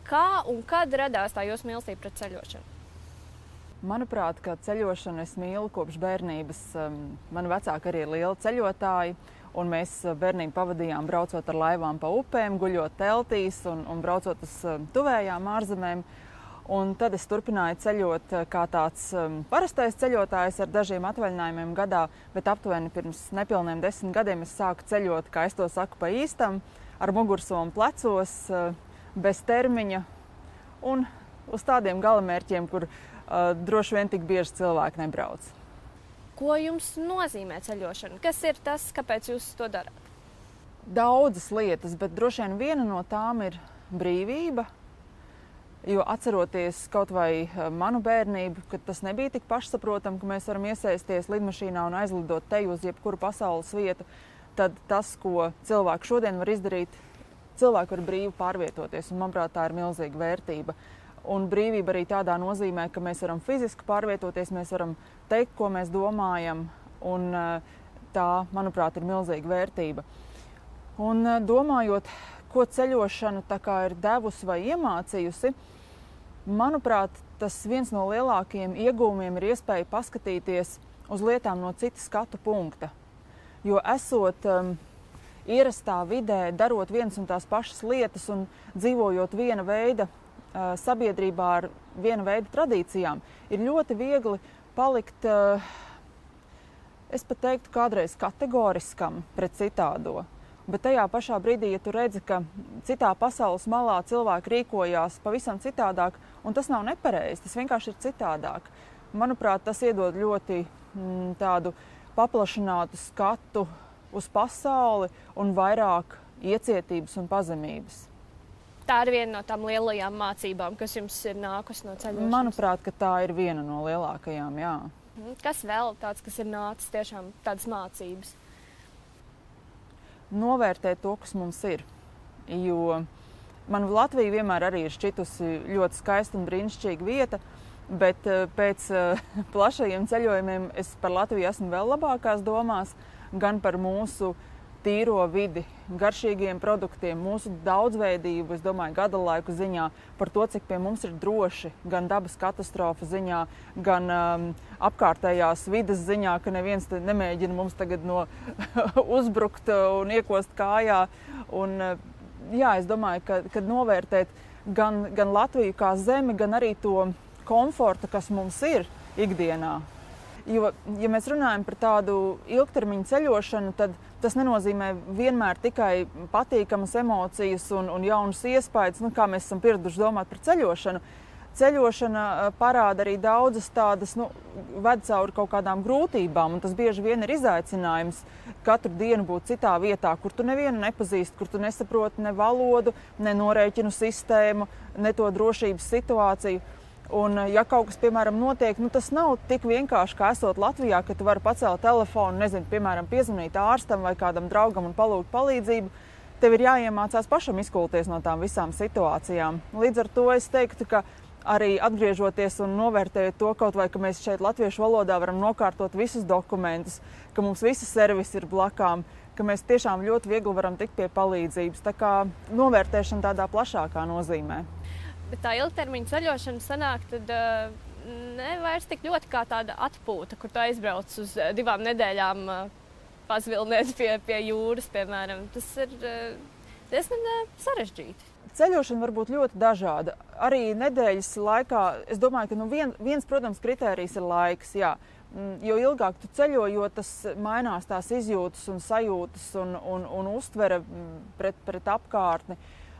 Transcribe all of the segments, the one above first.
Kā un kad radās tā jūsu mīlestība pret ceļošanu? Manuprāt, ka ceļošanu es mīlu kopš bērnības. Mani vecāki arī ir lieli ceļotāji, un mēs bērnību pavadījām braucot ar laivām pa upēm, guļot teltīs un braucot uz tuvējām ārzemēm. Un tad es turpināju ceļot kā tāds parastais ceļotājs ar dažiem atvaļinājumiem gadā, bet aptuveni pirms nepilniem 10 gadiem es sāku ceļot, kā es to saku, pa īstam, ar mugursomu plecos, bez termiņa un uz tādiem galamērķiem, kur droši vien tik bieži cilvēki nebrauc. Ko jums nozīmē ceļošana? Kas ir tas, kāpēc jūs to darāt? Daudzas lietas, bet droši vien viena no tām ir brīvība. Jo atceroties kaut vai manu bērnību, kad tas nebija tik pašsaprotami, ka mēs varam iesaisties lidmašīnā un aizlidot te uz jebkuru pasaules vietu, tad tas, ko cilvēki šodien var izdarīt, cilvēki var brīvi pārvietoties, un manuprāt, tā ir milzīga vērtība. Un brīvība arī tādā nozīmē, ka mēs varam fiziski pārvietoties, mēs varam teikt, ko mēs domājam, un tā, manuprāt, ir milzīga vērtība. Un domājot, ko ceļošana tā kā ir devusi vai iemācījusi, manuprāt, tas viens no lielākajiem iegūmiem ir iespēja paskatīties uz lietām no cita skatu punkta. Jo esot ierastā vidē, darot vienas un tās pašas lietas un dzīvojot viena veida sabiedrībā ar viena veida tradīcijām, ir ļoti viegli palikt, es pat teiktu, kādreiz kategoriskam pret citādo. Bet tajā pašā brīdī, ja tu redzi, ka citā pasaules malā cilvēki rīkojās pavisam citādāk, un tas nav nepareizi, tas vienkārši ir citādāk. Manuprāt, tas iedod ļoti tādu paplašinātu skatu uz pasauli un vairāk iecietības un pazemības. Tā ir viena no tām lielajām mācībām, kas jums ir nākusi no ceļošanas? Manuprāt, ka tā ir viena no lielākajām, jā. Kas vēl tāds, kas ir nācis tiešām tādas mācības? Novērtēt to, kas mums ir. Jo man Latvija vienmēr arī ir šķitusi ļoti skaista un brīnišķīga vieta, bet pēc plašajiem ceļojumiem es par Latviju esmu vēl labākās domās, gan par mūsu tīro vidi, garšīgiem produktiem, mūsu daudzveidību, es domāju, gada laiku ziņā, par to, cik pie mums ir droši, gan dabas katastrofu ziņā, gan apkārtējās vides ziņā, ka neviens nemēģina mums tagad uzbrukt un iekost kājā. Un, jā, es domāju, ka novērtēt gan Latviju kā zemi, gan arī to komfortu, kas mums ir ikdienā. Jo, ja mēs runājam par tādu ilgtermiņu ceļošanu, tad tas nenozīmē vienmēr tikai patīkamas emocijas un jaunas iespējas, kā mēs esam pieraduši domāt par ceļošanu. Ceļošana parāda arī daudzas tādas, ved cauri kaut kādām grūtībām, un tas bieži vien ir izaicinājums katru dienu būt citā vietā, kur tu nevienu nepazīsti, kur tu nesaproti ne valodu, ne norēķinu sistēmu, ne to drošības situāciju. Un, ja kaut kas, piemēram, notiek, tas nav tik vienkārši, kā esot Latvijā, ka tu vari pacelt telefonu, piemēram, piezvanīt ārstam vai kādam draugam un palūgt palīdzību. Tev ir jāiemācās pašam izkulties no tām visām situācijām. Līdz ar to es teiktu, ka arī atgriežoties un novērtējot to kaut vai, ka mēs šeit latviešu valodā varam nokārtot visus dokumentus, ka mums visi servisi ir blakām, ka mēs tiešām ļoti viegli varam tikt pie palīdzības. Tā kā novērtēšana tādā plašākā nozīmē. Bet tā ilgtermiņa ceļošana sanāk tad ne vairs tik ļoti kā tāda atpūta, kur tu aizbrauc uz 2 nedēļām pazvilnēt pie jūras, piemēram. Tas ir diezgan sarežģīti. Ceļošana var būt ļoti dažāda. Arī nedēļas laikā, es domāju, ka viens, protams, kritērijs ir laiks, jā. Jo ilgāk tu ceļo, jo tas mainās tās izjūtas un sajūtas un uztvere pret apkārtni.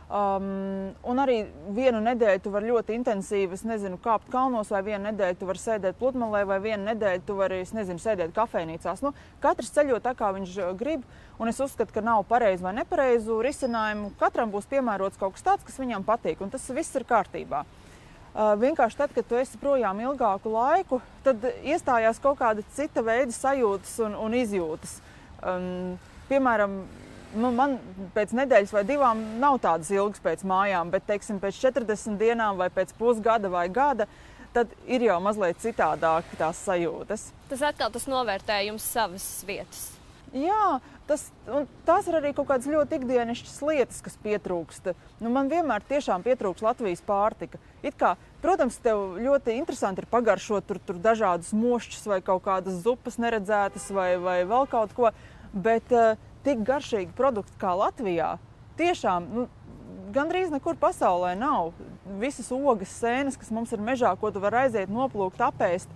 Un arī vienu nedēļu tu vari ļoti intensīvi, kāpt kalnos, vai vienu nedēļu tu vari sēdēt pludmalē, vai vienu nedēļu tu vari, sēdēt kafejnīcās. Katrs ceļo tā, kā viņš grib, un es uzskatu, ka nav pareizu vai nepareizu risinājumu. Katram būs piemērots kaut kas tāds, kas viņam patīk, un tas viss ir kārtībā. Vienkārši tad, kad tu esi projām ilgāku laiku, tad iestājās kaut kāda cita veida sajūtas un izjūtas. Piemēram, man pēc nedēļas vai 2 nav tādas ilgas pēc mājām, bet, teiksim, pēc 40 dienām vai pēc pusgada vai gada, tad ir jau mazliet citādāk tās sajūtas. Tas atkal tas novērtējums savas vietas. Jā, tās ir arī kaut kādas ļoti ikdienišķas lietas, kas pietrūkst. Man vienmēr tiešām pietrūkst Latvijas pārtika. Protams, tev ļoti interesanti ir pagaršot tur dažādus mošķus vai kaut kādas zupas neredzētas vai vēl kaut ko, bet tik garšīgi produkti kā Latvijā tiešām gandrīz nekur pasaulē nav. Visas ogas, sēnes, kas mums ir mežā, ko tu vari aiziet, noplūkt, apēst,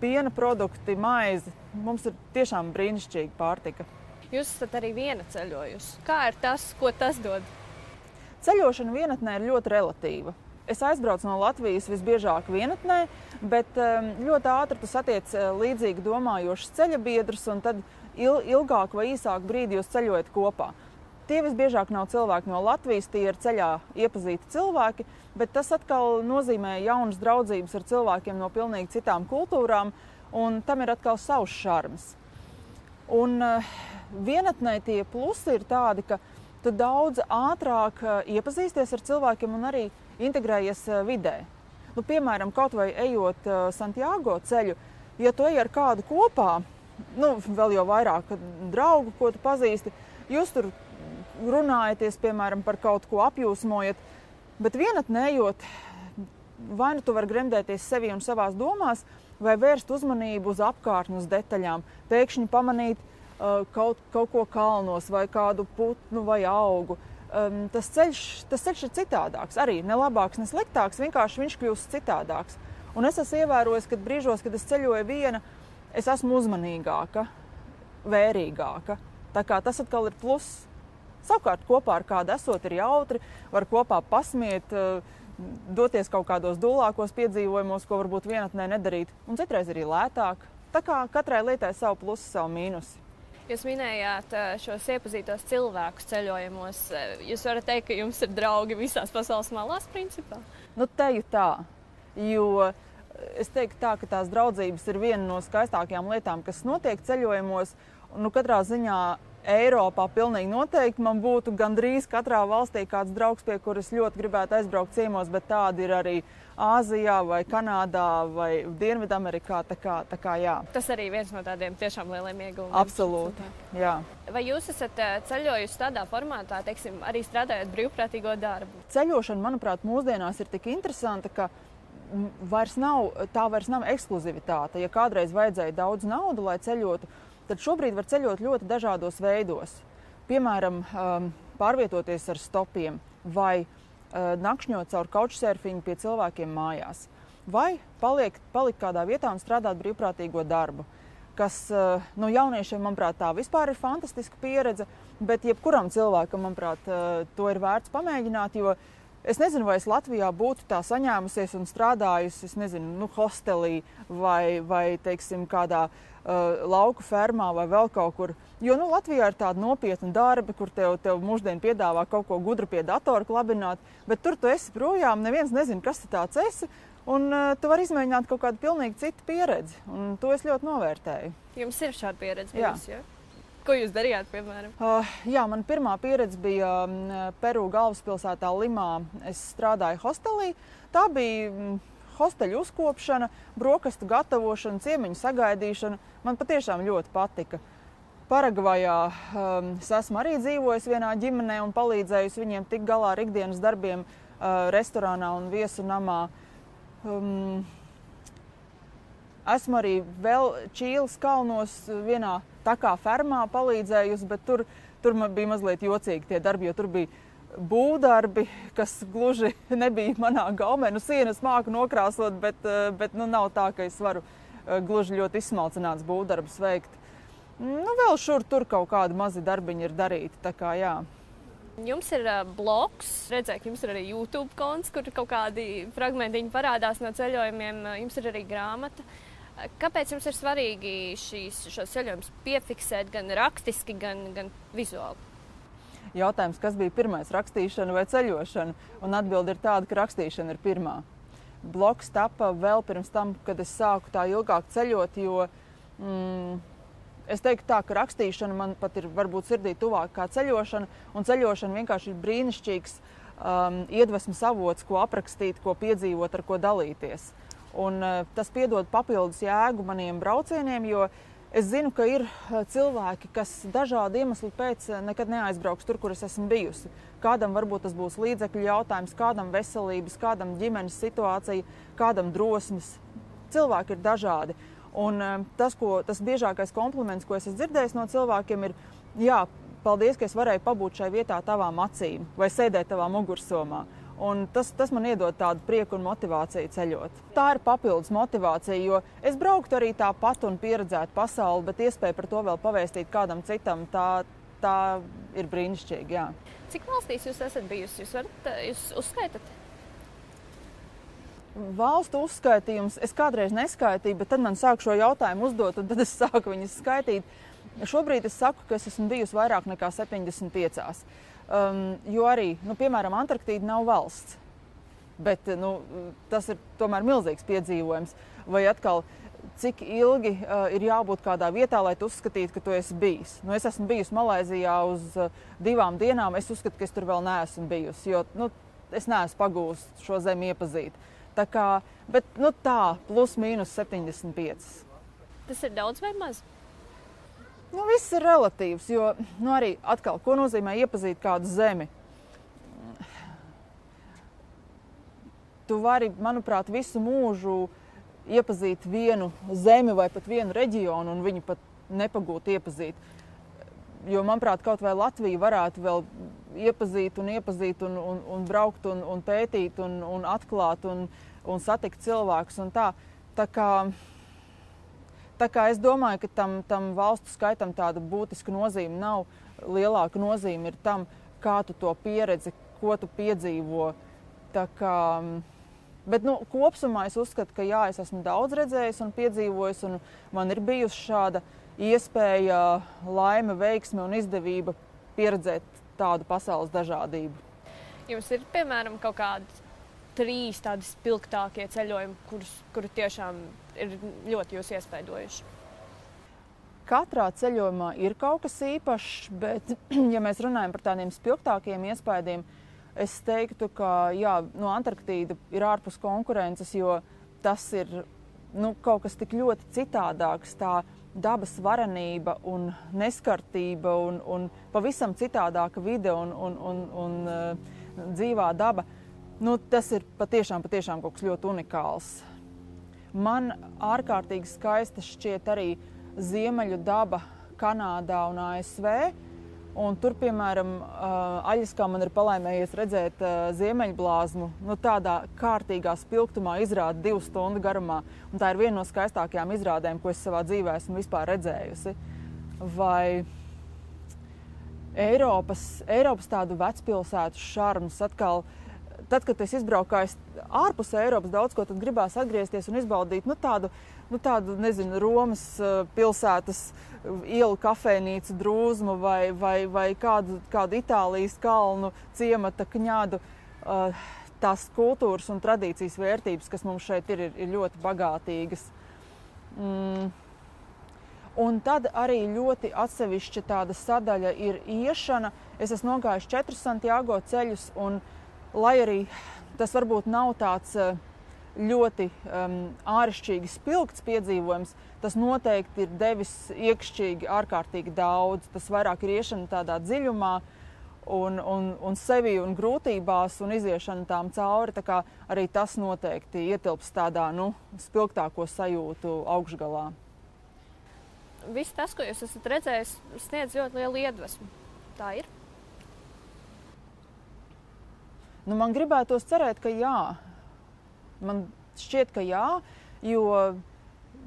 piena produkti, maize. Mums ir tiešām brīnišķīga pārtika. Jūs esat arī viena ceļojusi. Kā ir tas, ko tas dod? Ceļošana vienatnē ir ļoti relatīva. Es aizbraucu no Latvijas visbiežāk vienatnē, bet ļoti ātri tu satiec līdzīgi domājošus ceļabiedrus, un tad ilgāk vai īsāk brīdi jūs ceļojat kopā. Tie visbiežāk nav cilvēki no Latvijas, tie ir ceļā iepazīti cilvēki, bet tas atkal nozīmē jaunas draudzības ar cilvēkiem no pilnīgi citām kultūrām, un tam ir atkal savs šarms. Un vienatnē tie plusi ir tādi, ka tu daudz ātrāk iepazīsties ar cilvēkiem un arī integrējies vidē. Piemēram, kaut vai ejot Santiago ceļu, ja tu ej ar kādu kopā, vēl jau vairāk draugu, ko tu pazīsti, jūs tur runājaties, piemēram, par kaut ko apjūsmojat, bet vienatnē ejot, vai nu tu vari gremdēties sevi un savās domās, vai vērst uzmanību uz apkārtni, uz detaļām, pēkšņi pamanīt kaut ko kalnos vai kādu putnu vai augu. Tas ceļš ir citādāks, arī ne labāks, ne sliktāks, vienkārši viņš kļūst citādāks. Un es esmu ievērojis, ka brīžos, kad es ceļoju viena, es esmu uzmanīgāka, vērīgāka. Tā kā tas atkal ir pluss. Savukārt kopā ar kādu esot ir jautri, var kopā pasmiet, doties kaut kādos dūlākos piedzīvojumos, ko varbūt vienatnē nedarīt, un citreiz arī lētāk. Tā kā katrai lietai savu plusu, savu mīnusu. Jūs minējāt šos iepazītos cilvēkus ceļojumos. Jūs varat teikt, ka jums ir draugi visās pasaules malās, principā? Teju tā, jo es teiktu tā, ka tās draudzības ir viena no skaistākajām lietām, kas notiek ceļojumos. Katrā ziņā Eiropā pilnīgi noteikti man būtu gandrīz katrā valstī kāds draugs, pie kuras ļoti gribētu aizbraukt ciemos, bet tādi ir arī Āzijā vai Kanādā vai Dienvidamerikā. Tā kā jā. Tas arī viens no tādiem tiešām lieliem ieguvumiem. Absolūti, jā. Vai jūs esat ceļojusi tādā formātā, teiksim, arī strādājot brīvprātīgo darbu? Ceļošana, manuprāt, mūsdienās ir tik interesanta, ka vairs nav ekskluzivitāte. Ja kādreiz vajadzēja daudz naudu, lai ceļotu, tad šobrīd var ceļot ļoti dažādos veidos. Piemēram, pārvietoties ar stopiem vai nakšņot caur couchsurfingu pie cilvēkiem mājās. Vai palikt kādā vietā un strādāt brīvprātīgo darbu, kas jauniešiem, manuprāt, tā vispār ir fantastiska pieredze, bet jebkuram cilvēkam, manuprāt, to ir vērts pamēģināt, jo es nezinu, vai es Latvijā būtu tā saņēmusies un strādājusi, hostelī vai teiksim, kādā lauku fermā vai vēl kaut kur. Jo Latvijā ir tāda nopietna darba, kur tev mūždien piedāvā kaut ko gudru pie datora klabināt, bet tur tu esi projām, neviens nezina, kas tu tāds esi, un tu vari izmēģināt kaut kādu pilnīgi citu pieredzi, un to es ļoti novērtēju. Jums ir šāda pieredze bijusi, jā? Ko jūs darījāt, piemēram? Jā, man pirmā pieredze bija Peru galvaspilsētā Limā. Es strādāju hostelī. Tā bija hosteļu uzkopšana, brokastu gatavošana, ciemiņu sagaidīšana. Man patiešām ļoti patika. Paragvajā es esmu arī dzīvojis vienā ģimenē un palīdzējusi viņiem tikt galā ar ikdienas darbiem restorānā un viesu namā. Esmu arī vēl Čīles kalnos vienā tā kā fermā palīdzējusi, bet tur man bija mazliet jocīgi tie darbi, jo tur bija būvdarbi, kas gluži nebija manā gaumē. Sienas māku nokrāsot, bet nav tā, ka es varu gluži ļoti izsmalcināts būvdarbus veikt. Vēl šur tur kaut kādi mazi darbiņi ir darīti, tā kā jā. Jums ir blogs, redzēju, ka jums ir arī YouTube konts, kur kaut kādi fragmentiņi parādās no ceļojumiem, jums ir arī grāmata. Kāpēc jums ir svarīgi šos ceļojumus piefiksēt gan rakstiski, gan vizuāli? Jautājums, kas bija pirmais, rakstīšana vai ceļošana? Un atbilde ir tāda, ka rakstīšana ir pirmā. Blogs tapa vēl pirms tam, kad es sāku tā ilgāk ceļot, jo es teiktu tā, ka rakstīšana man pat ir varbūt sirdī tuvāk kā ceļošana, un ceļošana vienkārši ir brīnišķīgs iedvesmas avots, ko aprakstīt, ko piedzīvot, ar ko dalīties. Un tas piedod papildus jēgu maniem braucieniem, jo Es zinu, ka ir cilvēki, kas dažādu iemeslu pēc nekad neaizbrauks tur, kur es esmu bijusi. Kādam varbūt tas būs līdzekļu jautājums, kādam veselības, kādam ģimenes situācija, kādam drosmes. Cilvēki ir dažādi. Un tas biežākais kompliments, ko es esmu dzirdējis no cilvēkiem, ir, jā, paldies, ka es varēju pabūt šai vietā tavām acīm vai sēdēt tavā mugursomā. Un tas man iedod tādu prieku un motivāciju ceļot. Tā ir papildus motivācija, jo es brauktu arī tāpat un pieredzētu pasauli, bet iespēja par to vēl pavēstīt kādam citam, tā ir brīnišķīgi, jā. Cik valstīs jūs esat bijusi? Jūs uzskaitat? Valstu uzskaitījums es kādreiz neskaitīju, bet tad man sāk šo jautājumu uzdot, un tad es sāku viņus skaitīt. Šobrīd es saku, ka es esmu bijusi vairāk nekā 75. Jo arī, piemēram, Antarktīda nav valsts, bet tas ir tomēr milzīgs piedzīvojums. Vai atkal, cik ilgi ir jābūt kādā vietā, lai tu uzskatītu, ka tu esi bijis. Es esmu bijusi Malaizijā uz 2 dienām, es uzskatu, ka es tur vēl neesmu bijusi, jo es neesmu pagūst šo zemi iepazīt. Tā kā, bet tā, plus mīnus 75. Tas ir daudz vai maz? Viss ir relatīvs, jo arī atkal, ko nozīmē iepazīt kādu zemi? Tu vari, manuprāt, visu mūžu iepazīt vienu zemi vai pat vienu reģionu un viņu pat nepagūt iepazīt. Jo, manuprāt, kaut vai Latvija varētu vēl iepazīt un braukt un pētīt un atklāt un satikt cilvēkus un tā. Tā kā es domāju, ka tam valstu skaitam tāda būtiska nozīme nav. Lielāka nozīme ir tam, kā tu to pieredzi, ko tu piedzīvo. Bet kopsumā es uzskatu, ka jā, es esmu daudz redzējis un piedzīvojis, un man ir bijusi šāda iespēja, laime, veiksme un izdevība pieredzēt tādu pasaules dažādību. Jums ir, piemēram, kaut kādi 3 tādi spilgtākie ceļojumi, kuri tiešām ir ļoti jūs iespaidojuši? Katrā ceļojumā ir kaut kas īpašs, bet, ja mēs runājam par tādiem spilgtākiem iespaidiem, es teiktu, ka jā, Antarktīda ir ārpus konkurences, jo tas ir kaut kas tik ļoti citādāks, tā dabas varenība un neskartība un pavisam citādāka vide un dzīvā daba. Tas ir patiešām kaut kas ļoti unikāls. Man ārkārtīgi skaista šķiet arī ziemeļu daba Kanādā un ASV. Un tur, piemēram, Aļaskā man ir palaimējies redzēt ziemeļblāzmu. Tādā kārtīgā spilgtumā izrāda 2 stundu garumā. Un tā ir viena no skaistākajām izrādēm, ko es savā dzīvē esmu vispār redzējusi. Vai Eiropas tādu vecpilsētu šarms atkal. Tad, kad es izbraukāju ārpus Eiropas daudz ko, tad gribās atgriezties un izbaudīt tādu, nezinu, Romas pilsētas ielu kafejnīcu drūzmu vai kādu Itālijas kalnu ciemata kņadu. Tās kultūras un tradīcijas vērtības, kas mums šeit ir ļoti bagātīgas. Un tad arī ļoti atsevišķa tāda sadaļa ir iešana. Es esmu nogājuši 4 Santiago ceļus, un lai arī tas varbūt nav tāds ļoti āršķirīgi spilgts piedzīvojums, tas noteikti ir devis iekšķīgi ārkārtīgi daudz. Tas vairāk ir iešana tādā dziļumā un sevi un grūtībās un iziešana tām cauri. Tā kā arī tas noteikti ietilps tādā spilgtāko sajūtu augšgalā. Viss tas, ko jūs esat redzējis, sniedz ļoti lielu iedvesmu. Tā ir? Man gribētos cerēt, ka jā. Man šķiet, ka jā, jo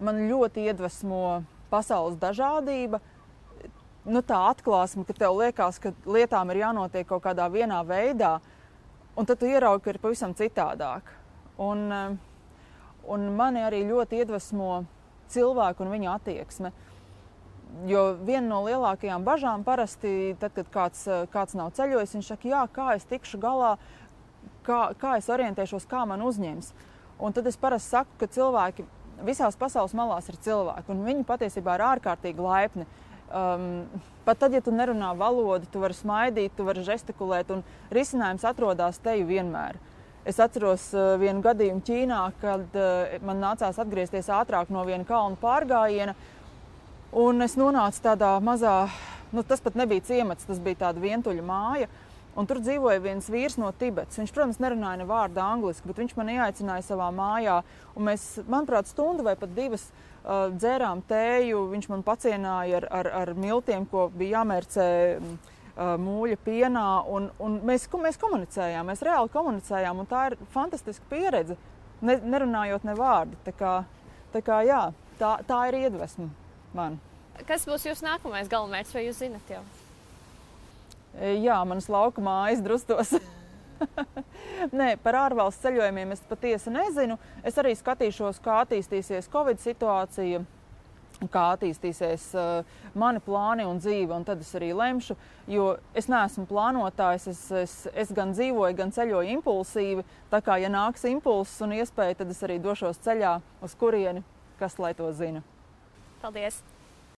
man ļoti iedvesmo pasaules dažādība. Tā atklāsme, ka tev liekas, ka lietām ir jānotiek kaut kādā vienā veidā, un tad tu ieraugi, ka ir pavisam citādāk. Un mani arī ļoti iedvesmo cilvēku un viņa attieksme. Jo viena no lielākajām bažām parasti, tad, kad kāds nav ceļojis, viņš saka, jā, kā es tikšu galā, kā es orientēšos, kā man uzņems. Un tad es parasti saku, ka cilvēki visās pasaules malās ir cilvēki, un viņi patiesībā ir ārkārtīgi laipni. Pat tad, ja tu nerunā valodu, tu vari smaidīt, tu vari žestikulēt, un risinājums atrodas teju vienmēr. Es atceros vienu gadījumu Ķīnā, kad man nācās atgriezties ātrāk no viena kalnu pārgājiena, Un es nonācu tādā mazā, tas pat nebija ciemats, tas bija tāda vientuļa māja. Un tur dzīvoja viens vīrs no Tibetas. Viņš, protams, nerunāja ne vārdu angliski, bet viņš mani ieaicināja savā mājā. Un mēs, manuprāt, stundu vai pat 2 dzērām tēju. Viņš man pacienāja ar miltiem, ko bija jāmērcē mūļa pienā. Un mēs komunicējām, mēs reāli komunicējām. Un tā ir fantastiska pieredze, nerunājot ne vārdu. Tā kā jā, tā ir iedvesma man. Kas būs jūsu nākamais galamērķis, vai jūs zinat jau? Jā, manas lauka mājas Drustos. Nē, par ārvalstu ceļojumiem es patiesi nezinu. Es arī skatīšos, kā attīstīsies Covid situācija, kā attīstīsies mani plāni un dzīve, un tad es arī lemšu, jo es neesmu plānotājs, es gan dzīvoju, gan ceļoju impulsīvi, tā kā, ja nāks impulss un iespēja, tad es arī došos ceļā, uz kurieni, kas lai to zina. Paldies!